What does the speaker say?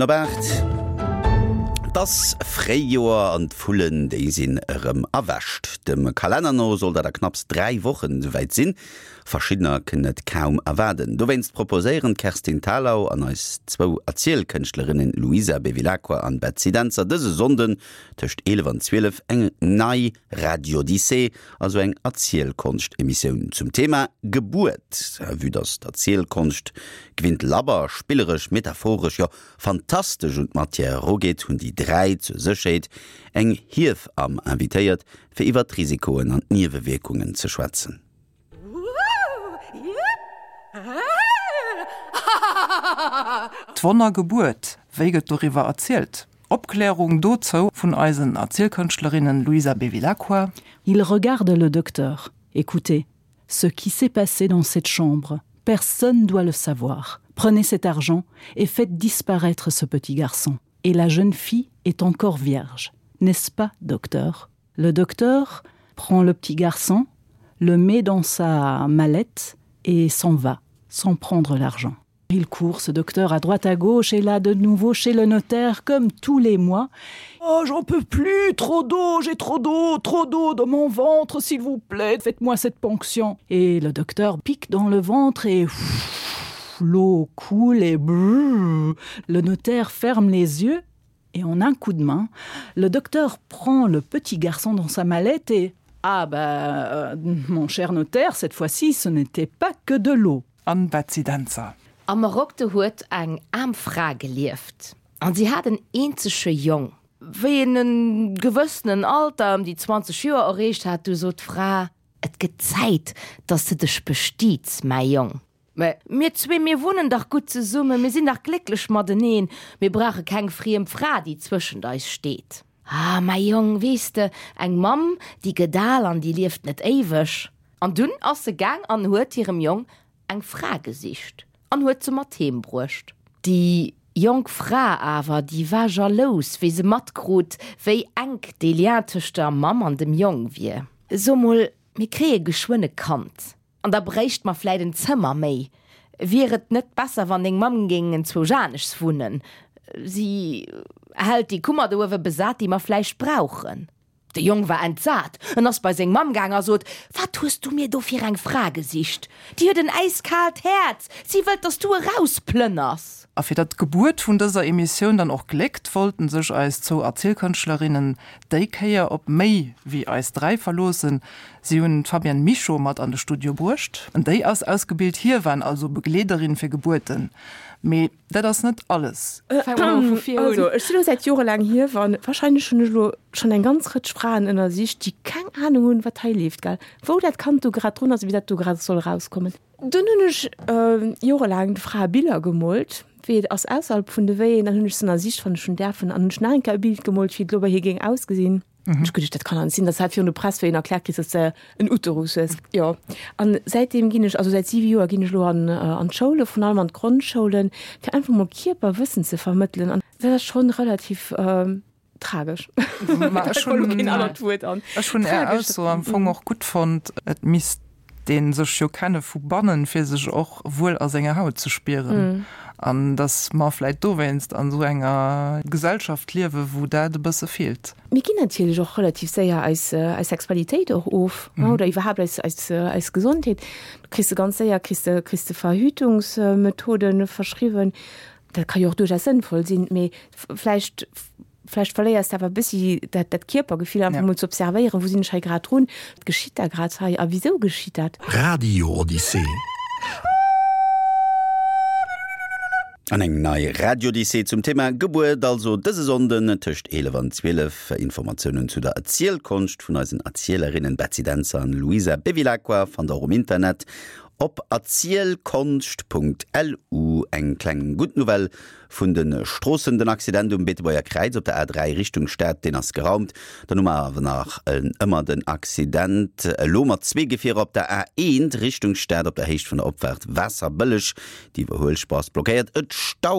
Op 8. Et ass Fréijoer an d'Vullen, déi sinn erëm erwächt. Dem Kalenner no soll dat a knapps 3 Wochen esouwäit sinn. Verschiddener kënnen et kaum erwaarden. Dowéinst proposéieren d'Kerstin Thalau an eis zwou Erzielkënschtlerinnen Luisa Bevilacqua an Betsy Dentzer dëse Sonnden tëscht 11 an 12 eng nei Radiodyssee, also eng Erzielkonscht-Emissioun zum Thema Gebuert. Vue dass d'Erzielkonscht gewinnt labber, spilleresch, metaphoresch, jo fantastesch un d'Matière erugeet, hunn déi 3 zur Sécherheet eng Hiewamm invitéiert, fir iwwer d'Risikoen an d'Niewewierkungen ze schwätzen. D'Wonnergebuert, wéi gëtt doriwwer erzielt? Opklärung dozou vun eisen Erzielkënschtlerinnen Luisa Bevilacqua. Il regarde le docteur. Écoutez, ce qui s'est passé dans cette chambre, personne doit le savoir. Prenez cet argent et faites disparaître ce petit garçon. Et la jeune fille est encore vierge, n'est-ce pas, docteur? Le docteur prend le petit garçon, le met dans sa mallette et s'en va, sans prendre l'argent. Il court ce docteur à droite à gauche et là de nouveau chez le notaire comme tous les mois. Oh j'en peux plus, trop d'eau, j'ai trop d'eau, trop d'eau dans mon ventre, s'il vous plaît, faites-moi cette ponction. Et le docteur pique dans le ventre et l'eau coule et brrr, le notaire ferme les yeux et en un coup de main, le docteur prend le petit garçon dans sa mallette et ah ben euh, mon cher notaire, cette fois-ci ce n'était pas que de l'eau. An Betsy Dentzer. Am Marok huet eng aarm Fra gelieft, an si hat en eenzege Jong. Wéi en en gewëssenen Alter, ëm déi 20 Joer, erreecht hat, du sot d'Fra. Et gëtt Zäit, dass de dech bestiets, mäi Jong. Mä mir zwee, mir wunnen dach gutt zesummen, mir sinn dach glécklech mateneen, mir brauche keng friem Fra, déi zwëschent eis steet. Ah, mäi Jong, weess de, eng Mamm, déi gëtt al an déi lieft net éiweg. An dunn ass se gaang an huet hirem Jong eng Fra gesicht an huet se mat heem bruecht. Déi jonk Fra awer, déi war jalous, wéi se matkrut, wéi enk dee Lien tëscht der Mamm an dem Jong wier. So mol, mir kréie geschwënn e Kand. An da bréicht mer vläit en Zëmmer méi. Wier et net besser, wann deng Mamm géing enzwousch aneschs wunnen? Si hält déi Kummer do uewe besat, déi mer vläicht brauchen. De Jong war entsat. En ass bei seng Mamm gaang a sot, Wat hues du mir do fir eng Fra gesicht? Déi huet en äiskaalt Häerz. Si wëllt, dass du erausplënners. A fir datt d'Gebuert vun dëser Emissioun dann och gléckt, wollten sech eis zwou Erzielkënschtlerinnen déi Kéier op méi wéi eis 3 verloossen. Si hunn d'Fabienne Michaud mat an de Studio bruecht. Déi ass ausgebilt Hiewan, also Begleederin fir Gebuerten. Mee dat ass net alles. Also ech si lo säit jorelaang Hiewan. Wahrscheinlech hunn ech elo schonn eng ganz Rëtsch Fraen ënnersicht, déi keng Anung hunn, wat hei leeft, gell? Wou dat Kand do grad drun ass, wéi dat do grad soll erauskommen. Dunn hunn ech jorelaang de Frae Biller gemoolt, wéi et ass ausserhalb vun de Wéien. Dann hunn ech se ënnersicht, wann ech hunn däerfen, an hunn ech nach eng Kéier e Bild gemoolt, wéi et elo bei hir géing ausgesinn. Ech geduecht, dat kann an sinn, dass hat virun der Press wéi een erkläert kriss, dass de en Uterus hues. Jo, an säitdeem ginn ech, also säit siwe Joer ginn ech elo an an d'Schoule, vrun allem an d'Grondsschoulen, fir einfach mol Kierperwëssen ze vermëttelen. An dat ass schonn relativ tragesch. Ma ech hunn keen anert Wuert an. Ech hunn Är Ausso am Fong och gutt fonnt, et misst dee sech jo kenne vu bannen, fir sech och wuel a senger Haut ze spieren. An datt mer vläit dowéinst an esou enger Gesellschaft liewen, wou dat e bësse feelt. Mir ginn natierlech och relativ séier eis eis Sexualitéit och of, oder iwwerhaapt eis eis eis Gesondheet. Du kriss de ganz séier kriss de kriss de Verhütungsmethoden verschriwwen. Dat ka jo och duerchaus sënnvoll sinn, mee vläicht Vläicht verléiers de awer e bëssi dat, dat Kierpergefill, einfach mol ze observéieren, wou sinn ech hei grad drun, wat geschitt da grad hei a wisou geschitt dat? Radio Odyssee. An eng nei Radiodyssee zum Thema Gebuert also dëse Sonnden tëscht 11 an 12. Informatiounen zu der Erzielkonscht vun eisen Erzielerinnen Betsy Dentzer an Luisa Bevilacqua fannt der och um Internet op erzielkonscht.lu. Eng kleng gutt Nouvelle Vun de Stroossen, Den Accident um Beetebuerger Kräiz op der A3 Richtung Stad, deen ass geraumt. Dann hu mer awer nach ëmmer den Accident, elo mat zwee Gefierer op der A1 Richtung Stad op der Héicht vun der Opfaart Waasserbëlleg. Déi Iwwerhuelspuer ass blockéiert, et staut.